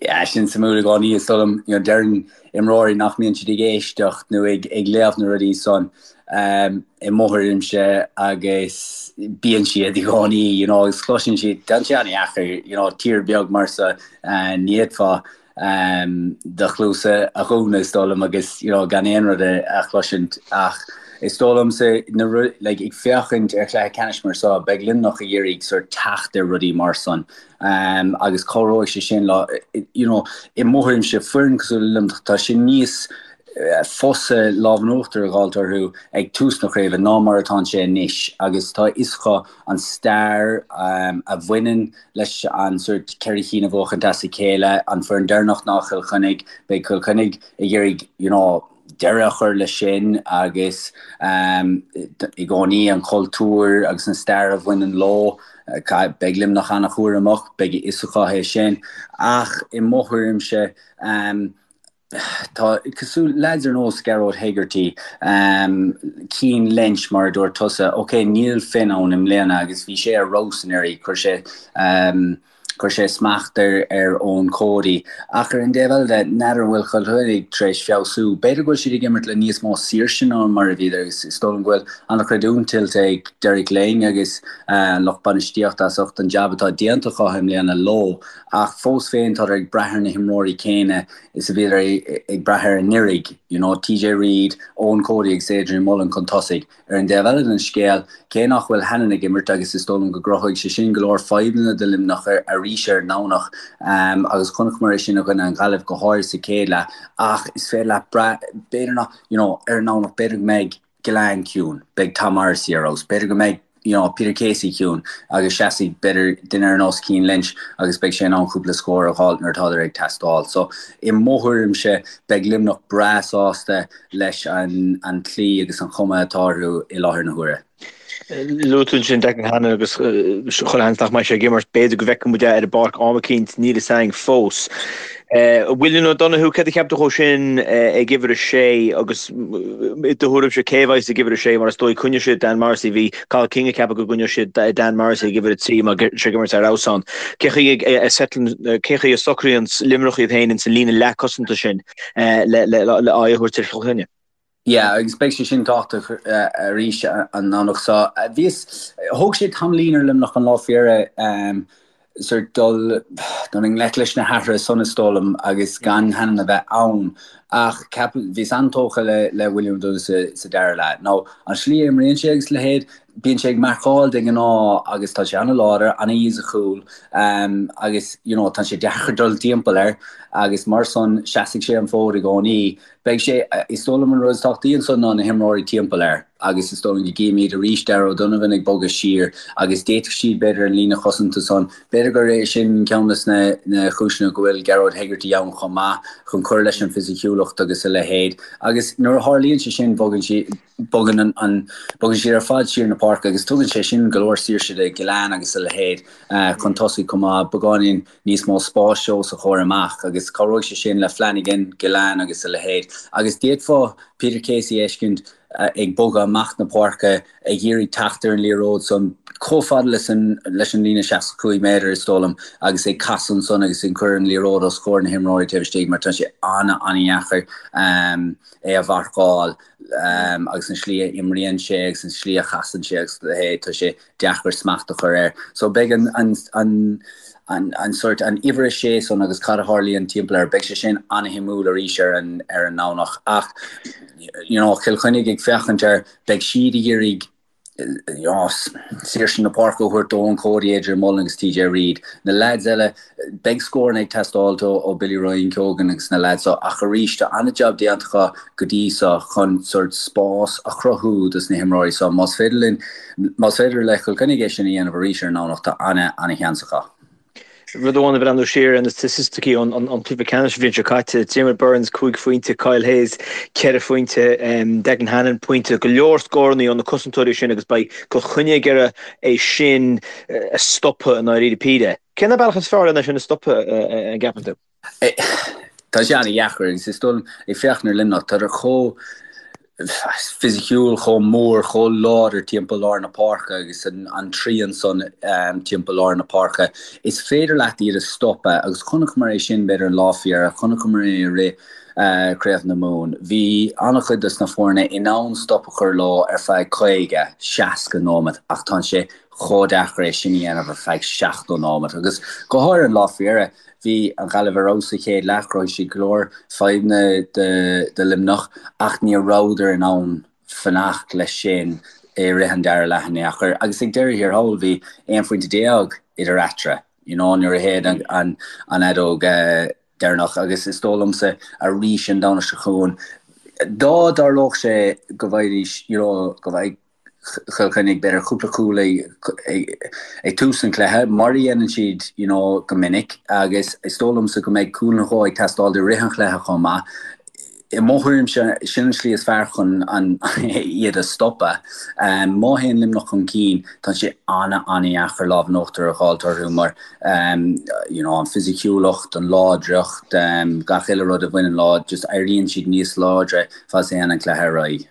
Yeah, sin suimiúil i gcónaí, is dóigh liom. You know, deireann imreoirí nach mbíonn siad ag éisteacht nó ag, ag léamh na rudaí san um, i mo thuairimse agus bíonn siad i gcónaí, you know, agus cloiseann siad, tá sé an-dheacair, you know, tír beag mar seo, uh, ní fhéadfá. do chluasa a dhúnadh is dóigh liom agus you know gan aon rud a chloisint ach is dóigh liomsa na like ag féachaint ar chluiche ceannais mar seo beidh Luimneach ag iarraidh sort teacht ar rudaí mar san agus cabhróidh sé sin leo you know i mo thuairimse foireann cosúil le Luimneach tá sé níos fusa lámh in uachtar a dh'fháilt orthu ag tús na craoibhe ná mar atánn sé anois agus tá a fhios acu an stair a bhaineann leis an sort 4 chinn a bhuachaint as a chéile, an foireann deireanach ná Cill Chainnigh, beidh Cill Chainnigh ag iarraidh you know deireadh a chur leis sin agus i gcónaí an cultúr agus an stair a bhaineann leo, beidh Luimneach an-chúramach, beidh a fhios acu é sin ach i mo thuairimse Tá, cosúil, leaids ar nós Gearóid Hegarty, Cian Lynch mar a dúirt tusa, ok níl Finn ann i mbliana agus bhí sé ar fheabhas anuraidh, chuir sé, chuir sé smacht ar ar Eoin Cody ach ar an dtaobh eile de, n'fheadar an bhfuil Cill Chainnigh tar éis feabhsú, b'fhéidir go bhfuil siad ag imirt le níos mó saoirse ná mar a bhíodar agus is dóigh liom go bhfuil an-chreidiúint tuillte ag Derek Lyng agus an lucht bainistíochta as ucht an jab atá déanta acu i mbliana leo ach fós féin tádar ag brath ar na himreoirí céanna is a bhíodar ag brath air anuraidh, you know, TJ Reid, Eoin Cody agus Adrian Mullen chun tosaigh. Ar an dtaobh eile den scéal, cé nach bhfuil Hannon ag imirt agus is dóigh liom go gcruthóidh sé sin go leor fadhbanna do Luimneach arís ar an nDomhnach agus chonaiceamar é sin i gcoinne an Ghaillimh go háirid sa chéad leath ach is féidir leat brath, b'fhéidir nach, you know, ar an nDomhnach b'fhéidir go mbeidh Gillane ciúin, beidh Tom Morrissey ar fheabhas, b'fhéidir go mbeidh you know, Peter Casey ciúin agus seasfaidh b'fhéidir duine ar nós Cian Lynch agus beidh sé in ann cúpla scór a dh'fháilt nuair atádar ag teastáil. So i mo thuairimse beidh Luimneach breá sásta leis an an tslí agus an chuma atá orthu i láthair na huaire. Luaigh tú ansin Declan Hannon agus chuile sheans nach mbeidh sé ag imirt, b'fhéidir go bhfeicfidh muid é ar an bpáirc am eicínt, níl fhios againn fós. William O'Donoghue, céard a cheap tú dhó sin ag uimhir a sé agus i do thuairimse cé a bheas ag uimhir a sé mar is dóigh coinneoidh siad Dan Morrissey, bhí Cathal King ag ceapadh go gcoinneodh siad Dan Morrissey ag uimhir a 3 mar tá sé ag imirt ar fheabhas ann. Cé chaoi a cé chaoi a socraíonn Luimneach iad féin ins an líne leathchosanta sin le aghaidh a thabhairt ar Chill Chainnigh? Yeah, agus beidh sé sin tábhachtach arís an Domhnach seo. Bhíos, thóg sé tamaillín ar Luimneach an lá faoi dheireadh sort dul dul i ngleic leis na hathruithe san is dóigh liom agus gan Hannon a bheith ann ach ceap, bhíos an-tógtha le le William O'Donoghue sa sa dara leath. Now, an slí a imríonn sé agus a leithéid, bíonn sé ag marcáil de ghnáth agus tá sé an-láidir, an-fhisiciúil agus you know tá sé deacair dul timpeall air agus mar san seasfaidh sé an fód i gcónaí. Beidh sé, is dóigh liom an rud is tábhachtaí ansan ná na himreoirí timpeall air agus is dóigh liom go gcífimid arís Darragh O'Donovan ag bogadh siar agus d'fhéadfadh siad b'fhéidir an líne chosanta san, b'fhéidir gur é sin ceann de na chúiseanna go bhfuil Gearóid Hegarty ann chomh maith chun cur leis an bhfisiciúlacht agus a leithéid agus nuair a tharlaíonn sé sin bogann siad, bogann an, bogann siad ar fad siar na páirce agus tugann sé sin go leor saoirse do Gillane agus a leithéid chun tosaigh chomh maith, beagáinín. níos mó spáis os a chomhair amach agus cabhróidh sé sin le Flanagan, Gillane agus a leithéid. Agus d'fhéadfá Peter Casey a fheiscint ag bogadh amach na páirce ag iarraidh teacht ar an liathróid san chomh fada leis an leis an líne 65 méadar is dóigh liom agus ag casadh ansan agus ag cur an liathróid os comhair na himreoirí taobh istigh mar tá sé an-an-dheacair é a mharcáil agus an slí a imríonn sé agus an slí a chasann sé agus a leithéid tá sé deacair smacht a chur air. So beidh an, an, an, an, an sort, an uimhir a sé san agus cad a tharlaíonn timpeall air, beidh sé sin an-shuimiúil arís ar an, ar an nDomhnach. Ach, you know, Cill Chainnigh ag féachaint air, beidh siad ag iarraidh, you know, saoirse na páirce a thabhairt d'Eoin Cody, Adrian Mullen agus TJ Reid. Na leaids eile, Beidh scóranna ag teastáilt ó Billy Ryan Keogan agus na leaids so ach arís tá an-jab déanta acu go dtí so chun sort spás a chruthú dos na himreoirí so. Más féidir linn, más féidir le Cill Chainnigh é sin a dhéanamh arís ar an nDomhnach tá an-an-sheans acu. Rud amháin ag breathnú siar ar na staitisticí ón cluiche ceannais an bhliain seo caite, Diarmaid Byrnes 5 phointe, Kyle Hayes 4 phointe, Declan Hannon pointe, go leor scóranna ó na cosantóirí sin agus beidh Cill Chainnigh ag iarraidh é sin a stopadh i ndáiríre píre. Cén bealach is fearr lena sin a stopadh, an gceapann tú? Tá sé an-dheacair agus is dóigh liom, ag féachaint ar Luimneach, tádar chomh fisiciúil, chomh mór, chomh láidir timpeall lár na páirce agus an trian san timpeall lár na páirce. Is féidir leat iad a stopadh agus chonaiceamar é sin b'fhéidir an lá faoi dheireadh, chonaiceamar é i rith. Craobh na Mumhan, bhí an-chuid dos na foirne in ann stop a chur leo ar feadh 50, 60 nóimeat ach tá sé chomh deacair é sin a dhéanamh ar feadh 70 nóimeat agus go háirithe an lá faoi dheireadh, bhí an Ghaillimh ar fheabhas sa chéad leath, chruthaigh siad go leor fadhbanna do Luimneach ach ní rabhadar in ann fanacht leis sin i rith an dara leath in aon chor agus ag deireadh thiar thall bhí 11 phointe idir eatarthu you know nuair a shéid an fheadóg deireanach agus is dóigh liomsa arís an Domhnach seo chugainn dá dtarlódh sé go bhfaighidís you know go bhfaigheadh Chill Chainnigh b'fhéidir cúpla cúl ag tús an chluiche mar a dhéanann siad you know go minic agus is dóigh liomsa go mbeidh cúl nó dhó ag teastáil i rith an chluiche chomh maith. I mo thuairimse, sin an slí is fearr chun iad a stopadh. Má théann Luimneach chun cinn, tá sé an-an-dheacair lámh in uachtar a dh'fháilt orthu mar you know an fisiciúlacht, an láidreacht, gach uile rud a bhaineann leo, just éiríonn siad níos láidre fad is a théann an cluiche ar aghaidh.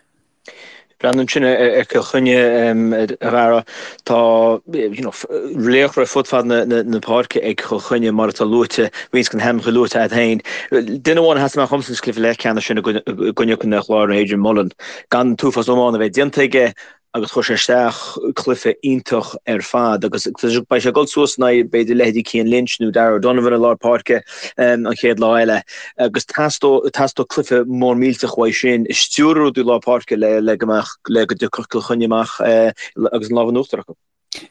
Breathnú ansin ar Chill Chainnigh, a Dhara, tá laochra fud fad na páirce ag Cill Chainnigh mar atá luaite, roinnt de na hainmneacha luaite agat féin. Duine amháin a sheas amach dhomsa sa chluiche leathcheannais sin i gcoinne Chontae an Chláir ná Adrian Mullen. Gan an t-uafás iomána a bheith déanta aige agus chuir sé isteach cluiche iontach ar fad agus beidh sé ag dul suas in aghaidh b'fhéidir leithéidí Cian Lynch nó Darragh O'Donovan i lár páirce an chéad lá eile agus teastóidh cluiche mór millteach uaidh sin ag stiúradh rudaí i lár páirce le go mbeadh le go dtiocfadh Cill Chainnigh amach agus an lámh in uachtar acu.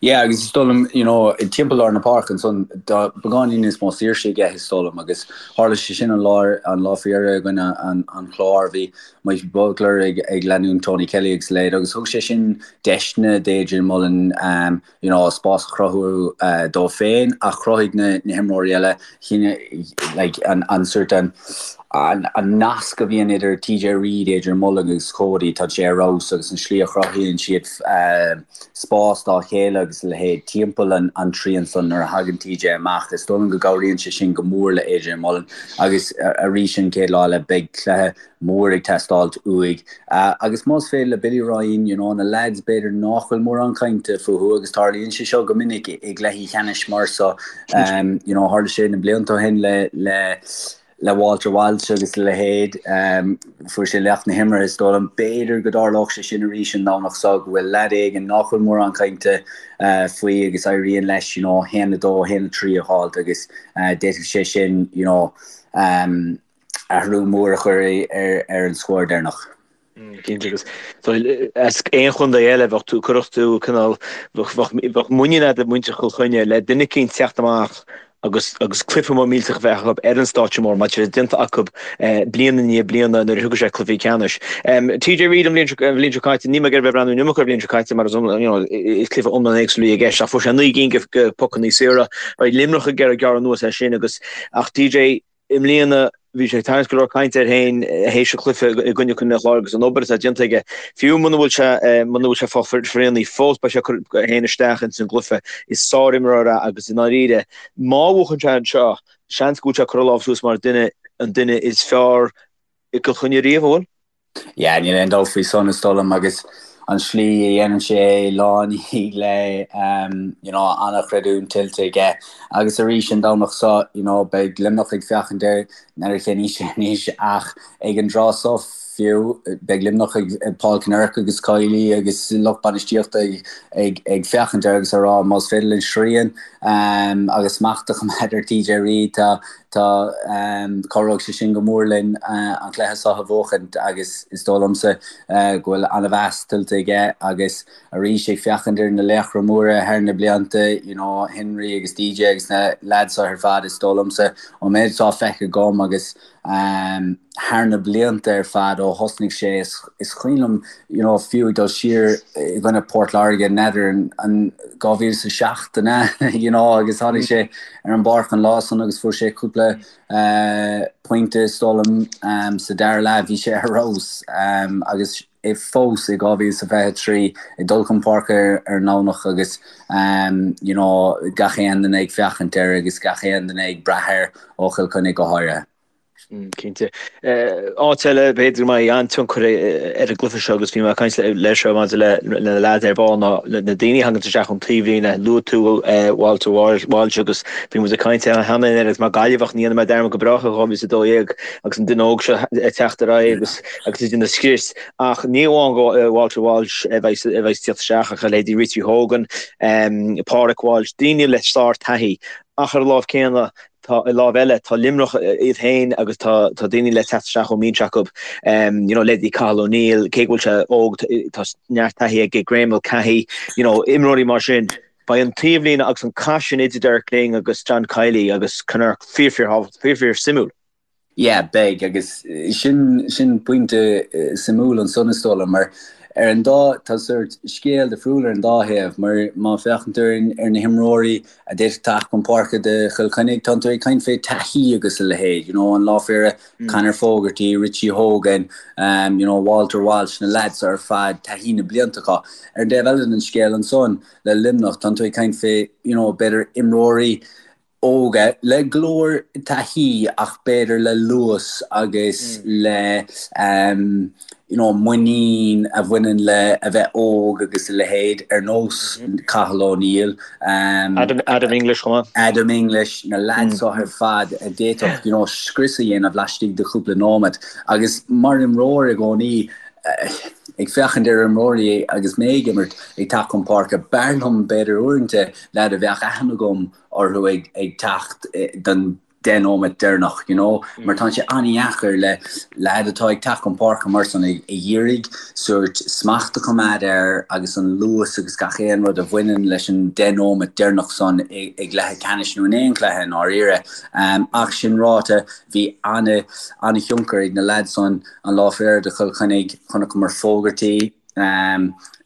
Yeah agus is dóigh liom you know timpeall lár na páirce ansan tá beagáinín níos mó saoirse aige is dóigh liom agus tharla sé sin an lá an lá faoi dheireadh i gcoinne an an Chláir bhí Mikey Butler ag ag leanúint Tony Kelly agus a leithéid agus thug sé sin deiseanna d'Adrian Mullen um, you know spás a chruthú dó féin ach chruthaigh na na himreoirí eile like an an sort an an an nasc a bhíonn idir TJ Reid, Adrian Mullen agus Cody tá sé ar fheabhas agus an slí a chruthaíonn siad spás dá chéile agus a leithéid timpeall an an trian san nuair a thagann TJ amach. Is dóigh liom go gcabhraíonn sé sin go mór le Adrian Mullen agus arís an chéad lá eile beidh cluiche mór ag teastáilt uaidh. Agus más féidir le Billy Ryan, you know, na lads b'fhéidir nach bhfuil mórán cainte fúthu agus tarlaíonn sé seo go minic i gcluichí ceannais mar so, you know, tharla sé na blianta ó shin le le le Walter Walsh agus a leithéid, fuair sé laoch na himeartha is dóigh liom. B'fhéidir go dtarlódh sé sin arís an Domhnach seo, go bhfuil leaid éigin nach bhfuil mórán cainte faoi agus éiríonn leis, you know, 1-2, 1-3 a dh'fháilt agus d'fhéadfadh sé sin, you know, athrú mór a chur ar an scór deireanach. Cinnte agus as aon chontae eile bheadh tú, cuirfeadh tú cineál, bheadh muinín agat i muintir Chill Chainnigh le duine eicínt teacht amach agus agus cluiche mór millteach a bheith acu ar an stáitse mór mar tá sé déanta acu bliain i ndiaidh bliana nuair a thiocfaidh sé cluichí ceannais. TJ Reid an bhliain seo an bhliain seo caite, níl mé ag iarraidh bheith ag breathnú an iomarca ar an bhliain seo caite mar is you know is cluiche iomlán éagsúil a bhí i gceist ach fuair sé 9 gcinn de phocanna saora. Beidh Luimneach ag iarraidh gearradh anuas air sin agus ach TJ I mbliana, bhí sé ag tarraingt go leor cainte air féin théis an chluiche i gcoinne Chontae an Chláir agus an obair atá déanta aige. Fiú muna bhfuil sé muna bhfuil sé fá phionraí fós, beidh sé ag cur é féin isteach ins an gcluiche. Is sárimreoir é agus i ndáiríre, má bhuachann sé anseo, seans go bhfuil sé ag cur a lámh suas mar duine an duine is fearr i gCill Chainnigh riamh, an bhfuil? Yeah, níl aon dabht faoi san is dóigh liom agus an slí a dhéanann sé é lá i ndiaidh lae, you know, an-chreidiúint tuillte aige. Agus arís an Domhnach seo, you know, beidh Luimneach ag féachaint air, n'fheadar cén aois é anois ach ag an dtráth seo fiú, beidh Luimneach ag Paul Kinnerk agus Kiely agus lucht bainistíochta ag, ag, ag féachaint air agus ag rá más féidir linn srian agus smacht a choimeád ar TJ Reid, tá, Tá, cabhróidh sé sin go mór linn an cluiche seo a bhuachaint agus is dóigh liomsa go bhfuil an-mheas tuillte aige agus arís ag féachaint ar na laochra móra thar na blianta, you know, Henry agus DJ agus na lads seo ar fad, is dóigh liomsa ón méid atá feicthe agam agus thar na blianta ar fad ó thosnaigh sé, is cuimhin liom, you know, fiú ag dul siar i gcoinne Port Láirge, n'fheadar an 2007 an ea, you know, agus tháinig sé ar an bpáirc an lá san agus fuair sé cúpla pointe is dóigh liom sa dara leath, bhí sé ar fheabhas agus é fós i 2023 ag dul chun páirce ar an nDomhnach agus you know gach aon duine ag féachaint air agus gach aon duine ag brath air ó Chill Chainnigh go háirithe. Cinnte. Áit eile, b'fhéidir go mbeidh an-tionchar ar an gcluiche seo agus bhí mé ag caint leis seo maidir le na leaids ar ball ná na daoine a thagann isteach ón taobhlíne. Luaigh tú Walter Walsh agus bhí muid ag caint cheana féin air agus mar Gaillimheach ní dhéanfaidh mé dearmad go brách ar 2012 agus an duine óg seo ag teacht ar aghaidh agus agus ag déanamh scrios. Ach ní amháin go Walter Walsh a bheidh a bheidh ag teacht isteach ach a leithéidí Richie Hogan, Pádraic Walsh, daoine le sár-taithí ach ar an lámh céanna Tá, ar láimh eile, tá Luimneach iad féin agus tá tá daoine le teacht isteach ón mbinse acu, you know, leithéidí Cathal O'Neill, cé go bhfuil sé óg, tá neart taithí aige, Graeme Mulcahy, you know, imreoirí mar sin. Beidh an taobhlíne agus an cath sin idir Derek Lyng agus John Kiely agus Kinnerk fíor fíor thábhachtach, fíor fíor suimiúil. Yeah, beidh, agus sin sin pointe suimiúil ansan is dóigh liom, mar ar an dá, tá sórt scéal difriúil ar an dá thaobh, mar má féachann tú ar ar na himreoirí a d'fhéadfadh teacht chun páirce do Chill Chainnigh, tánn tú ag caint fé taithí agus a leithéid, you know, an lá fé dheireadh, Conor Fogarty, Richie Hogan, you know, Walter Walsh, na lads ar fad, taithí na blianta acu. Ar an dtaobh eile den scéal ansan, le Luimneach, tánn tú ag caint fé, you know, b'fhéidir imreoirí óga le go leor taithí ach b'fhéidir le luas agus le you know muinín a bhaineann le a bheith óg agus a leithéid ar nós Cathal O'Neill, Adam, Adam English chomh maith. Adam English, na lads seo ar fad a d'fhéadfadh you know scrios a dhéanamh laistigh de chúpla nóiméad agus mar imreoir i gcónaí ag féachaint ar imreoirí agus mé ag imirt ag teacht chun páirce b'fhearr liom b'fhéidir uaireanta leaid a bheadh aithne agam orthu ag teacht don deich nóiméad deireanach, you know, mar tá sé an-dheacair le leaid atá ag teacht chun páirce mar san ag iarraidh sórt smacht a choimeád air agus an luas agus gach aon rud a bhaineann leis an deich nóiméad deireanach san i gcluiche ceannais nó in aon chluiche i ndáiríre. Ach sin ráite, bhí an-thionchar ag na leaids san an lá fé dheireadh do Chill Chainnigh, chonaiceamar Fogarty,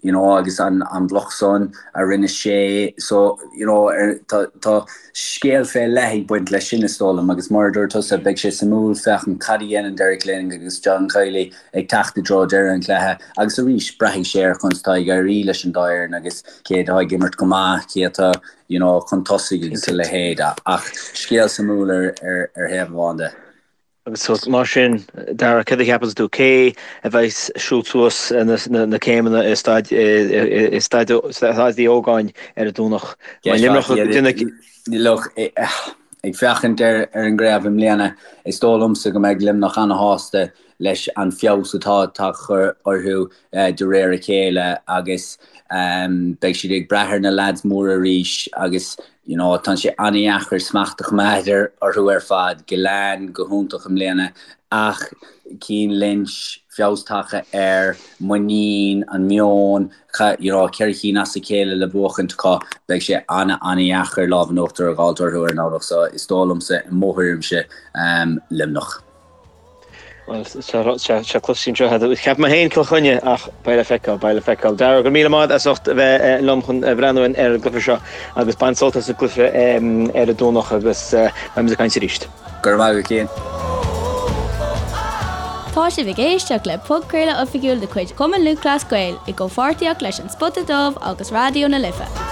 you know agus an an bloc san a rinne sé so you know ar tá tá scéal fé leith ag baint leis sin is dóigh liom agus mar a dúirt tusa beidh sé suimiúil féachaint cad a dhéanann Derek Lyng agus John Kiely ag teacht i dtreo deireadh an chluiche agus arís braithfidh sé ar conas atá ag éirí leis an dá fhoireann agus cé atá ag imirt go maith cé atá you know chun tosaigh agus a leithéid ach scéal suimiúil ar ar ar thaobh amháin de. Agus mar sin, Dara, céard a cheapanns tú, cé a bheas ag siúl suas na céimeanna i Staid Uí Ógáin ar an Domhnach? Look, ag féachaint ar an gcraobh i mbliana, is dóigh liomsa go mbeidh Luimneach ana-shásta leis an feabhas atá tagtha orthu de réir a chéile agus beidh siad ag brath ar na leaids móra arís agus you know tá sé an-dheacair smacht a choimeád orthu ar fad. Gillane go hiontach i mbliana ach Cian Lynch, feabhas tagtha air, muinín, an meon, you know 4 chinn as a chéile le buachaint acu, beidh sé an-an-dheacair lámh in uachtar a dh'fháilt orthu ar an nDomhnach so is dóigh liomsa i mo thuairimse Luimneach. Bhuel, tá cloiste anseo. Cheap mé féin Cill Chainnigh ach beidh le feiceáil, beidh le feiceáil. Dara, go raibh míle maith as ucht a bheith liom chun breathnú ar an gcluiche seo agus bain sult as an gcluiche ar an Domhnach agus beimid ag caint arís. Go raibh maith agat, Cian. Tá sibh ag éisteacht le podchraoladh oifigiúil de chuid Chumann Lúthchleas Gael i gcomhpháirtíocht leis An Spota Dubh agus Raidió na Life.